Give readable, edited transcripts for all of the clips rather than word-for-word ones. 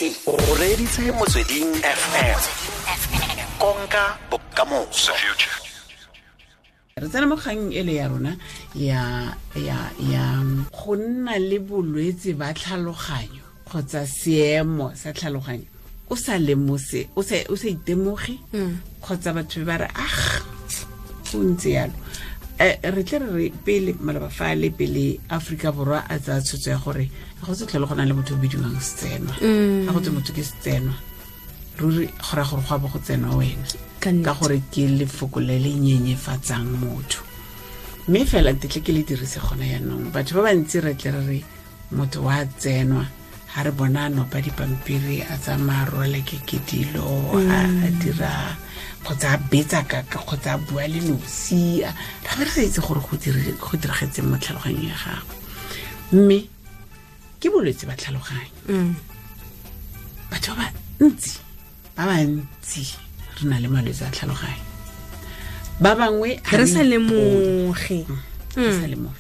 O reditse Motsweding FM. Konka bokamoso. Re tsena mo kgang ele ya rona ya go nna le bolwetse ba tlhaloganyo kgotsa seemo sa tlhaloganyo o sa lemose, o sa itemoge kgotsa batho ba re, ah, go ntse yalo. Re tle re pele maloba fale pele Aforika Borwa a tsaya tshwetso ya gore ga go se tlhole go na le motho o bidiwang setsenwa. Ga go tse motho ke setsenwa, ruri go raya gore go a bo go tsenwa wena, ka gore ke lefoko le le nyenyefatsang motho. Mme fela ntetle ke le dirise gona yaanong. Batho ba bantsi re tle re re motho wa tsenwa ga re bona a nopa dipampiri, a tsamaya, rwale ke dilo, a dira kgotsa a betsa kaka kgotsa a bua le nosi, ra be re sa itse gore go diragetseng mo tlhaloganyong ya gagwe. Mme ke bolwetse ba tlhaloganyo. Batho ba bantsi, ba bantsi re na le malwetse a tlhaloganyo. Ba bangwe re sa lemoge. Re sa lemoge.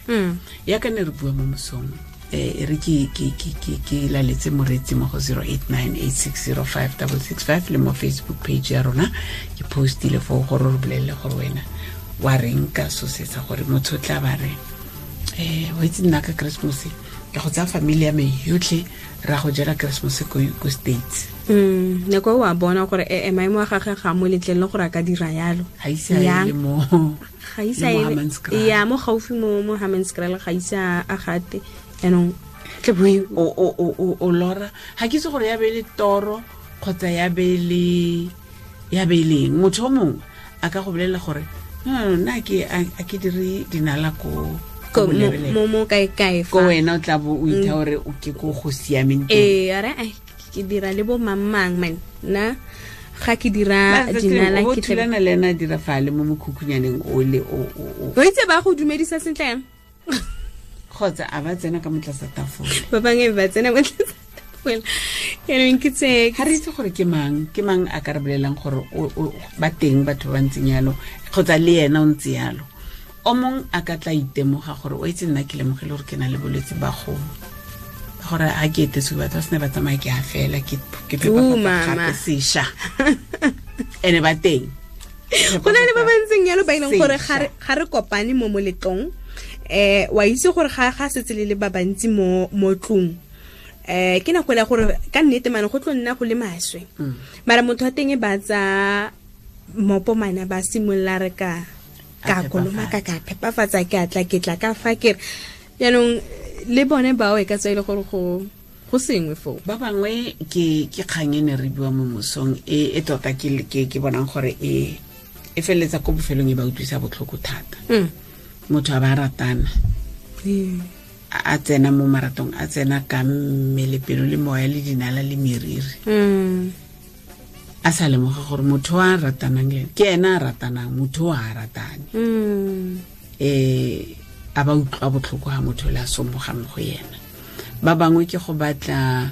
Yaka ne re bua mo mosong, re ke laletse moreetsi mo go 0898605665 le mo Facebook page ya rona. Ke postile foo gore re bolelele gore wena wa reng ka so se sa gore motho o tla ba re, wa itse, nna ka Christmas ke go tsaya family ya me yotlhe, ra go jela Christmas ko States. Nako wa bona gore e maemo a gagwe ga mo letlelele gore a ka dira yalo. Ga ise a le mo Ga ise ya mo gaufi mo Hammanskraal, ga ise a gate yaanong. O lora, ga ke itse gore ya be le toro kgotsa ya be leng. Motho o mongwe a ka go bolelela gore, no, nna a ke dire dinala ko mo kae kae. Ko wena o tla bo o itha gore o ke ko go siameng. Ee, are ke dira le bo mang mang man, nna ga ke dira dinala. Ke thulana le ena a dira fale mo mokhukhunyaneng ole o. O itse ba go dumedisa sentle yang. Kgotsa a ba tsena ka motlasa tafole. Ba bangwe ba tsena mo tlasa tafole yaanong ke tse. Ga re itse gore ke mang a ka re bolelelang gore ba teng batho ba ntseng yalo kgotsa le ena o ntse yalo. O mongwe a ka tla itemoga gore, o itse, nna ke lemogile gore ke na le bolwetse ba go gore ga ke etetse batho ba sene ba tsamaya, ke a fela ke gape sešwa ene ba teng. Go na le ba ba ntseng yalo ba e leng gore ga re kopane mo moletlong, wa itse gore ga setse le ba bantsi mo tlong, ke nako ya gore ka nnete mane go tlo nna go le maswe. Mara motho wa teng ba tsa mopo mana ba simolola re ka kolomaka, ka phepafatsa, ke atla ke tla ka fa ke re jaanong le bone bao e ka tswa e le gore go sengwe foo. Ba bangwe ke kgang e ne re bua mo mosong e tota ke bonang gore e feleletsa ko bofelong e ba utlwisa botlhoko thata. Motho a ba ratana, a tsena mo maratong, a tsena ka mmele, pelo le moya le dinala le meriri, a sa lemoga gore motho a ratanang le ke ena a ratanang, motho o a ratane. A ba utlwa botlhoko ga motho le a somoga mo go yena. Ba bangwe ke go batla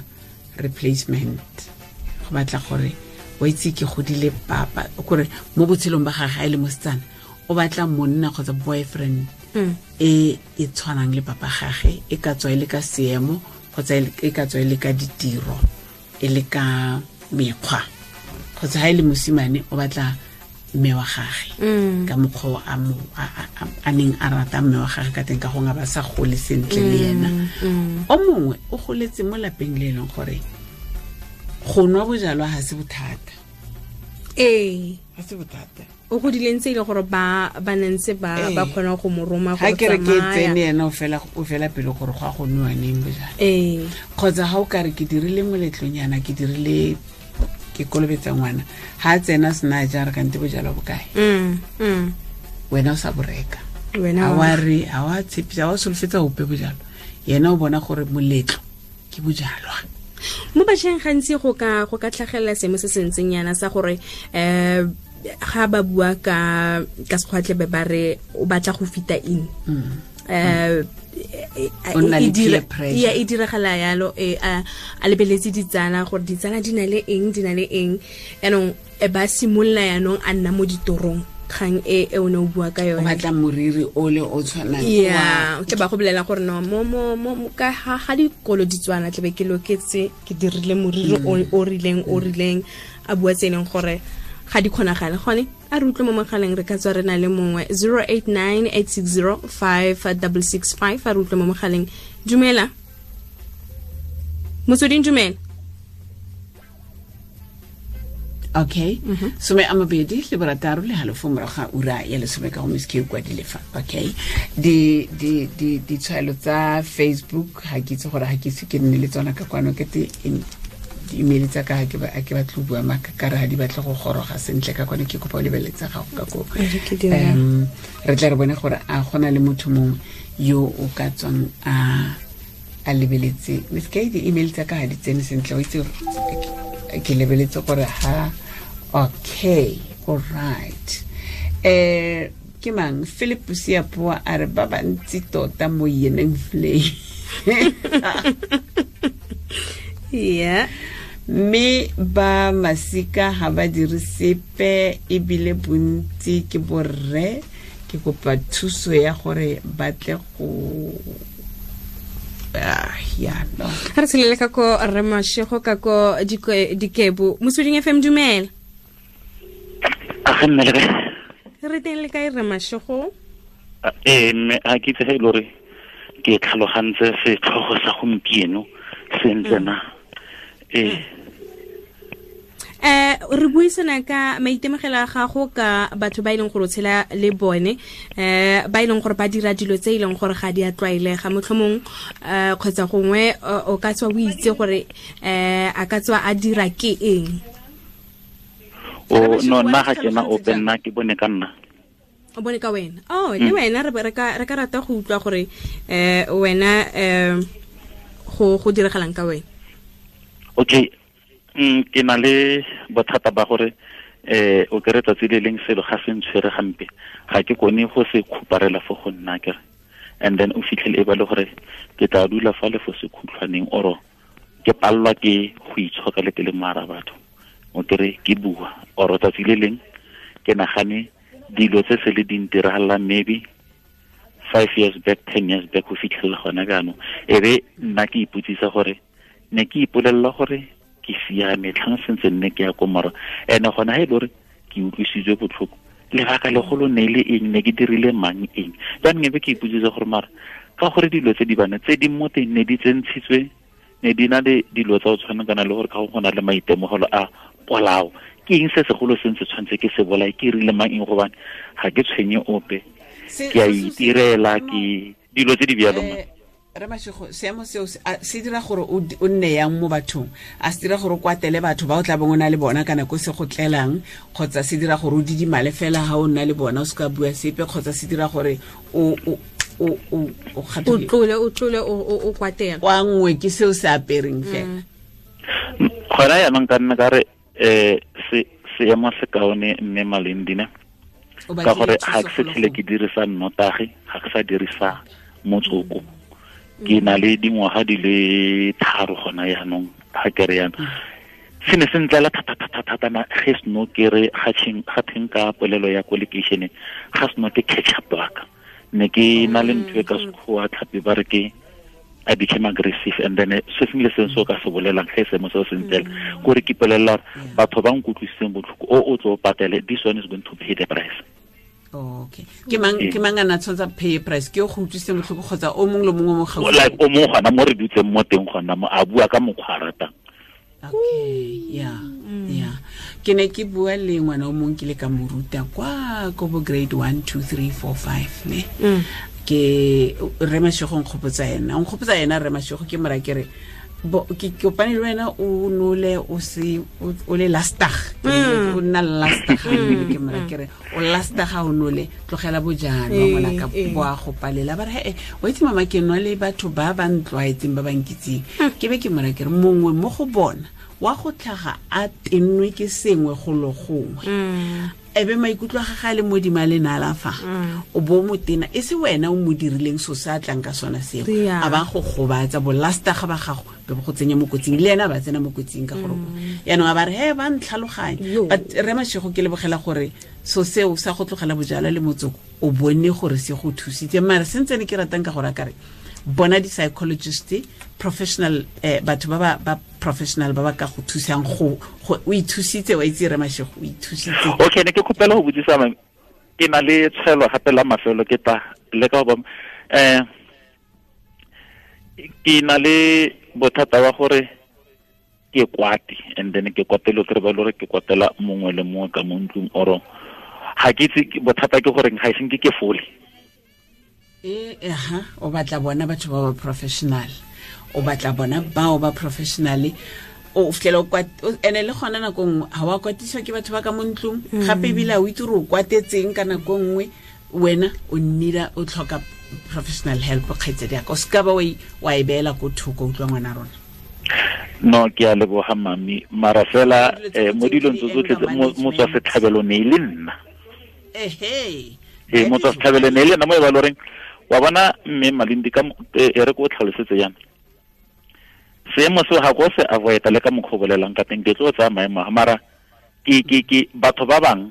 replacement, go batla gore, wa itse, ke godile papa, kore mo botshelong ba gage a e le mosetsana o batla monna kgotsa boyfriend e e tshwanang le papa gage, e ka tswa e le ka seemo kgotsa e ka tswa e le ka ditiro, e le ka mekgwa, kgotsa ga e le mosimane o batla mme wa gage ka mokgwa a neng a rata mme wa gage ka teng, ka gongwe ba sa gole sentle le ena. O mongwe o goletse mo lapeng le e leng gore go nwa bojalwa ga se bothata. Ga se bothata. O godile ntse e le gore ba nentse ba kgona go mo roma. Ga ke re ke tsene, ena o fela pele gore go a go nwewa neng bojalwa. Kgotsa ga o kare ke dirile moletlonyana, ke dirile, ke kolobetsa ngwana, ga a tsena sena ja re kante bojalwa bokae? Wena o sa boreka, ga wa re, ga wa tshepisa, ga wa solofetsa ope bojalwa. Yena o bona gore moletlo ke bojalwa. Mo bašweng gantsi go ka tlhagelela seemo se se ntseng yana sa gore ga ba bua ka sekgwatle be ba re o batla go fita in. Ya, e diragala yalo, e a lebeletse ditsala gore ditsala di na le eng, di na le eng. Yaanong ba simolola yaanong a nna mo ditorong Kgang e e o ne o bua ka yone. O batla moriri o le o tshwanang. Yeah, ke ba go bolela gore no mo mo mo ka ga dikolo di tswana tlebe ke loketse ke dirile moriri o rileng a bua tse leng gore ga di kgonagale gone a re utlwe mo mogaleng re ka tswa re na le mongwe 0898605665 a re utlwe mo mogaleng. Dumela Motsweding, dumela. Okay. 26.5 morago ga ura ya 10 ka go Miss K kwa dilefa. Okay. Di di di ditshwaelo tsa Facebook ga ke itse gore ga ke itse ke nne le tsona ka kwano ke te di-email tsa ka ga ke batle go bua maaka ka re ga di batle go goroga sentle ka kwano ke kopa o lebeletse gago ka ko. Re tla re bone gore a gona le motho mongwe yo o ka tswang a lebeletse. Miss K di-email tsa ka ga di tsene sentle o itse ke lebeletse gore ha okay, all right. Ke mang Philip Siapoa a re ba bantsi tota mo yeneng flay. Yeah. Mme ba masika ha ba dire sepe ebile bontsi ke borre ke kopa thuso ya gore ba tle go ya no. Re tshelele ka ko Rre Mashego ka ko Dikebo. Motsweding FM, dumela. A ga nne le kae? Re teng le kae Rre Mashego? Mme a ke itse ge e le gore ke tlhalogantse setlhogo sa gompieno sentle na. Re buisana ka maitemogelo a gago ka batho ba e leng gore o tshela le bone ba e leng gore ba dira dilo tse e leng gore ga di a tlwaelega motlhomong kgotsa gongwe o ka tswa o itse gore a ka tswa a dira ke eng. O no nna ga ke na ope, nna ke bone ka nna. O bone ka wena. Oh, le wena re ka rata go utlwa gore wena go diragalang ka wena. Okay. Ke na le bothata ba gore o kere tsatsi le leng selo ga se ntshwere gampe ga ke kone go se khuparela fo go nna kere, and then o fitlhele e ba le gore ke tla dula fa le fo sekhutlhwaneng oro ke pallwa ke go itshoka le ke le mara batho o kere ke bua oro tsatsi le leng ke nagane dilo tse se le di ntiragalang maybe 5 years back, 10 years back go fitlhelela gona jaanong e be nna ke ipotsisa gore ne ke ipolelela gore ke siame tlhang sentse nne ke ya ko mora ene gona ha e le gore ke utlwisitswe botlhoko lebaka legolo ne le eng, ne ke dirile mang eng. Jaanong ebe ke ipotsisa gore mara ka gore dilo tse di bana tse di mo teng ne di tsentshitswe ne di na le dilo tsa go tshwana kana le gore ka go na le maitemogelo a polao ke eng se segolo se ntse tshwanetse ke se bolae ke rile mang eng gobane ga ke tshwenye ope ke a itirela ke dilo tse di bjalo. Rre Mashego, seemo seo se dira gore o nne yang mo bathong? A se dira gore o kwatele batho ba o tla bong o na le bona kana ko se go tlelang, kgotsa se dira gore o didimale fela ha o nna le bona o se ka bua sepe, kgotsa se dira gore o tlole o kwatela wa nngwe ke seo se apereng fela? Gona jaanong ka nna ka re seemo se kaone mme Malendine ka gore ga ke se tlhele ke dirisa nnotagi, ga ke sa dirisa motsoko. Ke na le dingwaga di le 3 gona jaanong ga ke re yana se ne se ntlela thata na ge seno ke re ga teng ka polelo ya ko lekeišeneng ga seno ke catch up waka ne ke na le ntho e ka sekgowa tlhapi ba re ke I became aggressive and then se sengwe le sengwe se o ka se bolelang ge seemo seo se ntlela kore ke ipolelela batho ba nkutlwisitseng botlhoko o tlo patele, this one is going to pay the price. Okay. Ke mang a na tshwantsha pay price ke o go utlwisitse botlhoko kgotsa o mongwe le mongwe mo gaufi? Like o mongwe gona mo re dutseng mo teng gona mo a bua ka mokgwa a ratang. Okay, yeah. Yeah. Ke ne ke bua le ngwana o mongwe ke le ka mo ruta kwa ko bo grade 1 2 3 4 5 ne. Ke Rre Mashego nkgopotsa ena. Nkgopotsa ena Rre Mashego ke mora ke re ke kopane le wena o nole o se o le lastag o nna lastag ke mora ke re o lastag ha o nole tlogela bojana ngwana ka boa go palela ba re o itse mama ke nwa le batho ba ba ntlwaetseng ba ba nkitseng ke be ke mora ke re mongwe mo go bona wa go tlhaga a tennwe ke sengwe go lo gongwe ebe maikutlo a gagwe a le modimo a le nala fa o bo motena e se wena o mo dirileng so se a tlang ka sona seo a ba go gobatsa bolasta ga ba gago be go tsenya mo kotsing le ena ba tsena mo kotsing ka gore yaanong a ba re he ba ntlhaloganye. But Rre Mashego ke lebogela gore So seo sa go tlogela bojalwa le motsoko o bone gore se go thusitse. Mare sentse ne ke ratang ka gore a kare bona di-psychologist, professional, batho ba ba professional ba ba ka go thusang go o ithusitse, wa itse re Mashego, o ithusitse. Okay, ne ke khopela go botsisa mame, ke na le tshwelo gape la mafelo ke ta le ka ba ke na le bothata wa gore ke kwate, and then ke kwatelo ke re ba lore ke kwatela mongwe le mongwe ka mo ntlong, oro ga ke itse bothata ke gore ga e senke ke fole. O batla bona batho ba ba professional, o batla bona bao ba professional, o fitlhela o ene le gona nako nngwe ga wa kwatiswa ke batho ba ka mo ntlong, gape ebile o itse gore o kwatetseng ka nako nngwe, wena o nnira o tlhoka professional help. Kgaitsedi yaka, o seka ba wa e beela ko thoko, utlwa ngwana rona. No, ke a leboga mami, mara fela mo dilong tse tsotlhe motswa setlhabelo ne e le nna. Ee, motswa setlhabelo ne e le nna mo e ba loreng wa bona mme Malindi ka e re ko tlhalosetse yana seemo seo ga ko se avoida le ka mokgwa o bolelang ka teng, ke tlo tsaya maemo a mara ke batho ba bang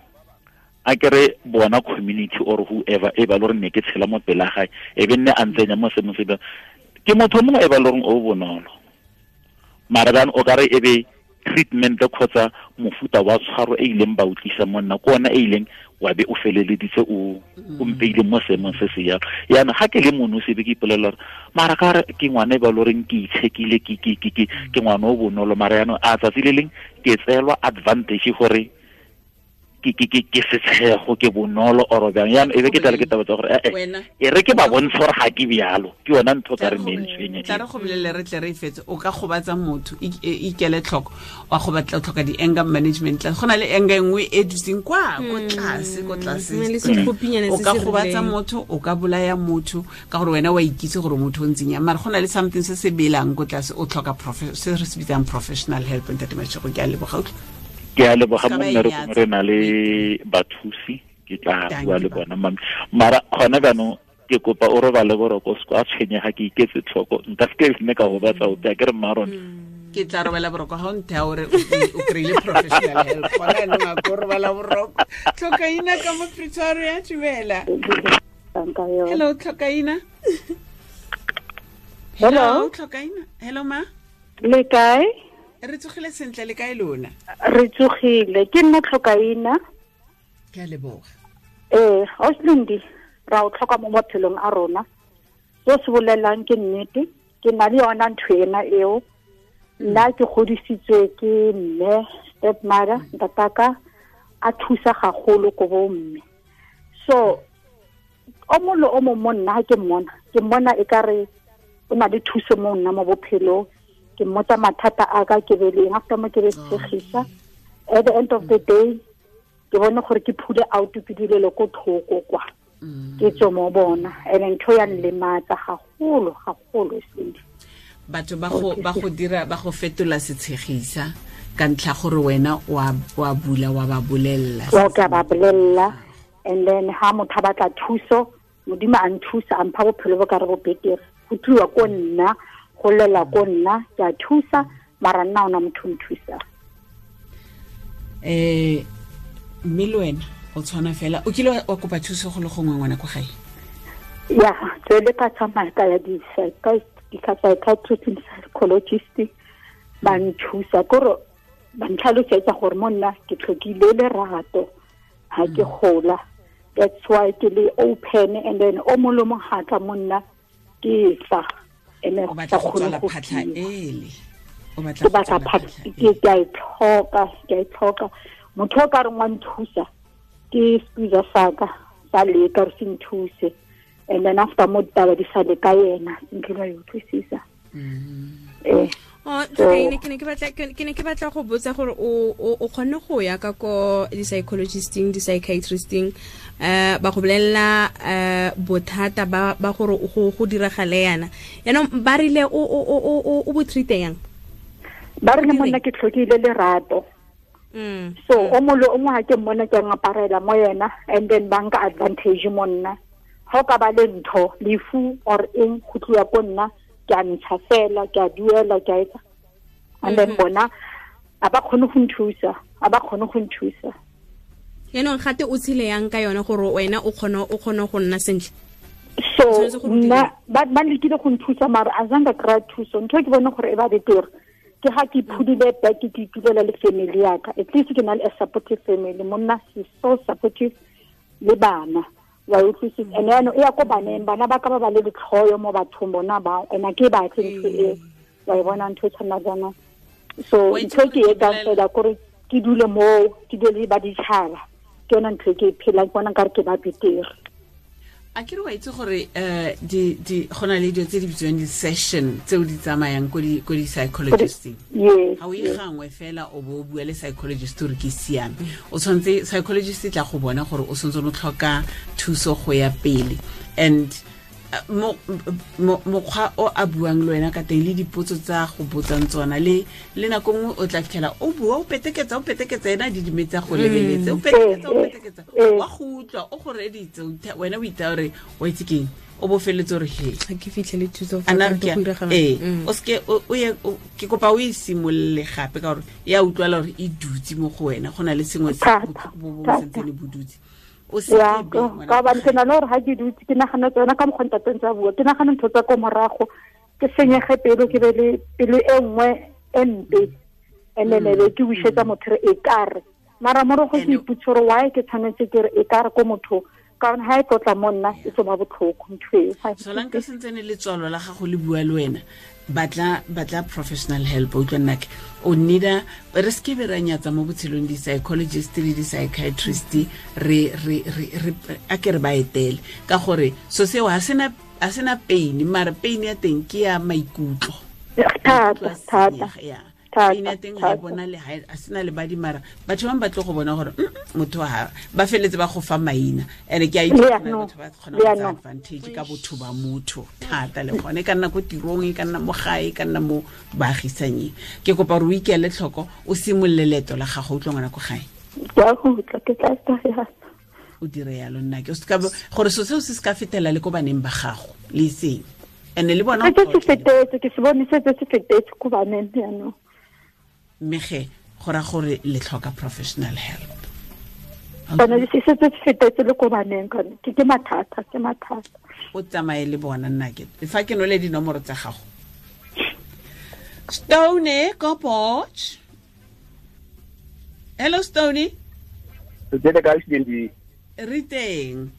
a ke re bona community or whoever e ba loreng ne ke tshela mo pela gae e be nne a ntsenya mo seemong se, ke motho mongwe e ba loreng o bonolo, mara bjang o kare e be treatment kgotsa mofuta wa tshwaro e ileng ba utlwisa monna ko ona e ileng wa be o feleleditse o mpeile mo seemong se se jalo. Yana ga ke le mono se be ke ipolelela gore mara ka re ke ngwana e ba loreng ke itshekile, ke ngwana o bonolo, mara yaanong a tsatsi le leng ke tseelwa advantage gore ke setshego, ke bonolo oro bjang. Yaanong e be ke tlale ke taba tsa gore e re ke ba bontshe gore ga ke bjalo, ke yona ntho ka re mentsweng. Tla re go bolelele re tle re e fetse, o ka gobatsa motho, ikele tlhoko, wa go batla tlhoka di-anger management class. Go na le anger nngwe e dutseng kwa ko tlase, ko tlase. O ka gobatsa motho, o ka bolaya motho ka gore wena wa ikitse gore motho o ntseng yang, mara go na le something se se belang ko tlase, o tlhoka se re se bitsang professional help. Ntate Mashego, ke a leboga. Ke a leboga mo mmerekong, re na le bathusi, ke tla bua le bona mami. Mara gona jaanong ke kopa o robale boroko, o se a tshwenyega, ke iketse tlhoko, nka se ke nne ka gobatsa ope, a ke re mma rona. Ke tla robala boroko ga o nthea ore o kry-ile professional help. Gona jaanong a ko robala boroko. Tlhokaina ka mo Pretoria, dumela. Hello Tlhokaina. Hello Tlhokaina. Hello ma. Le kae? Re tsogile sentle, le kae lona? Re tsogile, ke nna Tlhokaina. Ke a leboga. Auslindi, ra o tlhoka mo maphelong a rona. Se se bolelang ke nnete, ke na le yona ntho ena eo. Nna ke godisitswe ke mme, stepmother, ntataka, a thusa gagolo ko bo mme. So, o mongwe le o mongwe mo nna ke mmona e ka re o na le thuso mo nna mo bophelong. Ke mmotsa mathata a ka ke beleng, after mo ke be tshegisa. At the end of the day, ke bone gore ke phule out ke dilelo ko thoko kwa. Ke tswe mo bona, and ntho ya nlematsa gagolo gagolo sedi. Batho ba go dira, ba go fetola setshegisa ka ntlha gore wena wa bula wa ba bolella. Wa ka ba bolella, and then ha motho a batla thuso, Modimo a nthusa, a mpha bophelo bo ka re bo betere. Go tliwa ko nna, go lela ko nna, ke a thusa, mara nna ona motho nthusa. Mme le wena o tshwana fela, o kile wa kopa thuso go le gongwe ngwana ko gae? Ya, tsele ka tsamaya ka ya di-psychiatrist le psychologist ba nthusa, kore ba ntlhalosetsa gore mo nna ke tlhokile lerato ha ke gola. That's why ke le open, and then o mongwe le mongwe ga tla mo nna ke tla. Ene o batla go tswala phatlha ele, o batla go tswala phatlha, ke a e tlhoka. Motho o ka reng wa nthusa ke squeeze saka sa leka re se nthuse, and then after mo ditaba di sale ka yena ntlo ya utlwisisa. Ke ne ke batla go botsa gore o kgonne go ya ka ko di-psychologisting, di-psychiatristing, ba go bolelela bothata ba gore go diragale yana. Yaanong ba rile o bo treat-e yang? Ba rile monna ke tlhokile lerato. So o mongwe le o mongwe ga ke mmona ke ngaparela mo yena, and then ba nka advantage mo nna. Ga o ka ba le ntho, lefu or eng, go tliwa ko nna, ke a ntsha fela, ke a duela, ke a etsa. And then bona a ba kgone go nthusa, a ba kgone go nthusa. Yaanong gate o tshele yang ka yone gore wena o kgone go nna sentle? So nna ba lekile go nthusa, mara a zanga kry-a thuso. Ntho e ke bone gore e ba betere ke ga ke iphudile back, ke itulela le family yaka. At least ke na le a supportive family. Monna is so supportive le bana, wa utlwisisa. And yaanong e ya ko baneng, bana ba ka ba ba le letlhoyo mo bathong bona bao, and a ke batle ntho eo, wa e bona ntho e tshwana jaana. So ntho e ke e etsang fela kore ke dule moo, ke dule le ba ditšhaba, ke yona ntho e ke e phelang, ke bona nkare ke ba betere. A ke re wa itse gore di go na le dilo tse di bitswang di-session tseo di tsamayang ko di-psychologisteng. Ga o e gangwe fela o bo o bua le psychologist gore ke siame, o tshwanetse psychologist e tla go bona gore o santse o tlhoka thuso go ya pele. And mokgwa o a buang le wena ka teng le dipotso tsa go botsang tsona, le nako nngwe o tla fitlhela o bua o peteketsa ena di dimetsa go lebeletse, o peteketsa wa go utlwa o go reditse, wena o itse gore wa itse keng, o bo feletse gore he ga ke fitlhele thuso fa ka go diragala. O seke o ye, ke kopa o e simolole gape ka gore ya utlwala gore e dutse mo go wena, go na le sengwe se bo sentsene bo dutse. Ya, ka ba ke na le gore ga ke dutse ke nagana tsona ka mokgwa ntateng tsa bua, ke nagana ntho tsa ko morago, ke senyege pelo, ke be le pelo e nngwe e mpe, and then be ke wisetsa motho re e kare. Mara morago ke ipotse gore why ke tshwanetse ke re e kare ko motho, ka gore ha e tlotla mo nna e tlo ba botlhoko ntho eo. Solanka sentsene letswalo la gago le bua le wena, batla professional help. O utlwa nnake, o needa re seke be ra nyatsa mo botshelong di-psychologist le di-psychiatrist, re a ke re ba etele, ka gore so seo ha sena pain, mara pain ya teng ke ya maikutlo. Thata. Pain ya teng ga e bona le ha sena le badi, mara batho bangwe ba tlo go bona gore motho ha ba feletse ba go fa maina. And ke a itse batho ba kgona go tsaya advantage ka botho ba motho thata, le gone e ka nna ko tirong, e ka nna mo gae, e ka nna mo baagisanyeng. Ke kopa gore o ikele tlhoko, o simolole leeto la gago, o utlwa ngwana ko gae. O dire yalo nna ke gore so seo se se ka fetela le ko baneng ba gago le seng. And le bona ke se fetetse, ke se bone se se fetetse ko baneng jaanong. Mme ge go ra gore le tlhoka professional help. Bona se se fetetse le ko baneng, ke mathata, ke mathata. O tsamaye le bona nna ke fa ke nole dinomoro tsa gago. Stone ko Potch. Hello Stone. Re teng.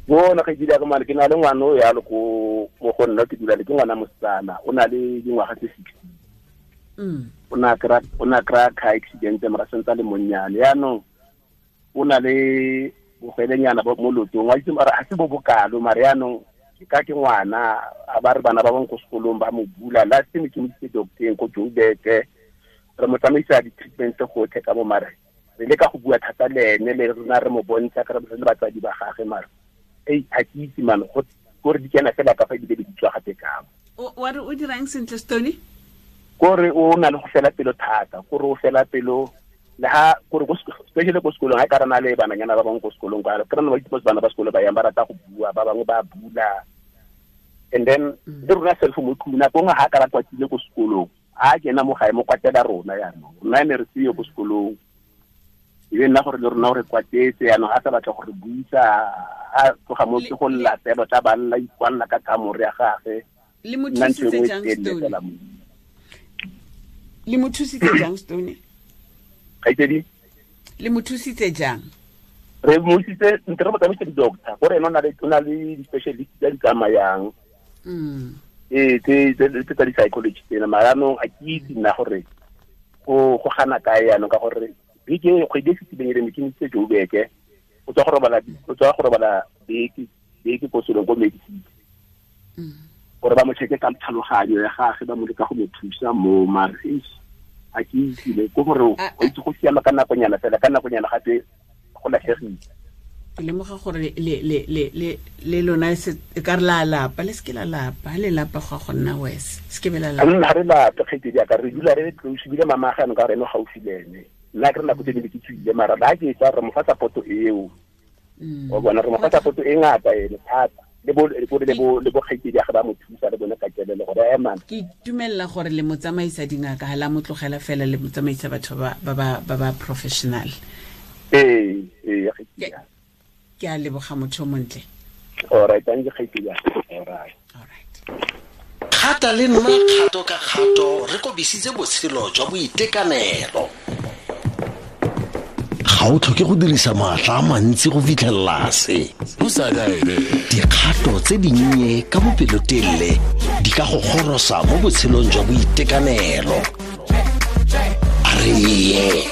Bona ke dira ka mane, ke na le ngwana o ya le ko mo go nna ke dula le ke ngwana mosetsana, o na le dingwaga tse 16. O na kry-a car accident mara sentse le monnyane, yaanong o na le bogwelenyana mo lotong, wa itse mara ga se bo bokalo, mara yaanong ke ka ke ngwana, a ba re bana ba bangwe ko sekolong ba mo bula. Last time ke mo isitse docteng ko Joburg, re mo tsamaisa di-treatment gotlhe ka mo, mare re leka go bua thata le ene, le rona re mo bontsha ka re le batsadi ba gagwe, mara ei ga ke itse mane gore di kena fela ka fa ebile di tswa gape ka mo. Wa re o dirang sentle Stone? Kore o na le go fela pelo thata, kore o fela pelo le ha kore go especially ko sekolong, ha ka rana le bananyana ba bangwe ko sekolong, ka re ba itse bana ba sekolo ba yang ba rata go bua, ba bangwe ba bula. And then le rona self mo tlung nako nngwe ha ka ra kwatile ko sekolong, a kena mo gae mo kwatela rona jaanong, rona ne re seyo ko sekolong, e be nna gore le rona gore kwatetse jaanong, a sa batla gore buisa, a tloga mo ke go lla fela, tla ba lla ikwalela ka kamore ya gagwe. Le mo thusitse jang Stone? Le mo thusitse jang Stone? Kgaitsedi? Le mo thusitse jang? Re mo thusitse ntle re mo tsamaise di-doctor, gore ene o na le di-specialist tse di tsamayang. Tse tsa di-psychology tsena, mara jaanong a ke itse nna gore go gana kae jaanong, ka gore beke kgwedi e fetileng e re ne ke mo isitse Joburg, o tswa go robala beke ko sekolong ko Medicity, gore ba mo check-e ka tlhaloganyo ya gagwe, ba mo leka go mo thusa mo, mara a ke itsile ko gore o itse go siama ka nakonyana fela, ka nakonyana gape go latlhegile. Ke lemoga gore le lona e ka re la lapa, le seke la lapa, le lapa go go nna worse, se ke be la lapa. Nna re lapa kgaitsedi ya ka, re dula re le close, ebile mama ga ka re ene gaufi le ene. Nna ke re nako tse dingwe ke tswile, mara ba ke etsa re mo fa support eo. O bona re mo fa support e ngata ene thata. Le bo kgaitsedi ya gagwe ba mo thusa le bone ka kelelo gore ema. Ke itumella gore le mo tsamaisa dingaka, ha la mo tlogela fela, le mo tsamaisa batho ba ba professional. Ee. Ke a leboga motho o montle. All right, thank you kgaitsedi. All right. All right. Kgata le nna kgato ka kgato re kobisitse botshelo jwa boitekanelo. Ga o tlhoke go dirisa maatla a mantsi go fitlhelela se. Dikgato tse dinnye ka bopelotelele di ka go gorosa mo botshelong jwa boitekanelo. A re ye.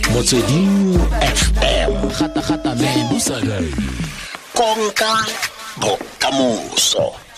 Motsweding FM. Konka bokamoso.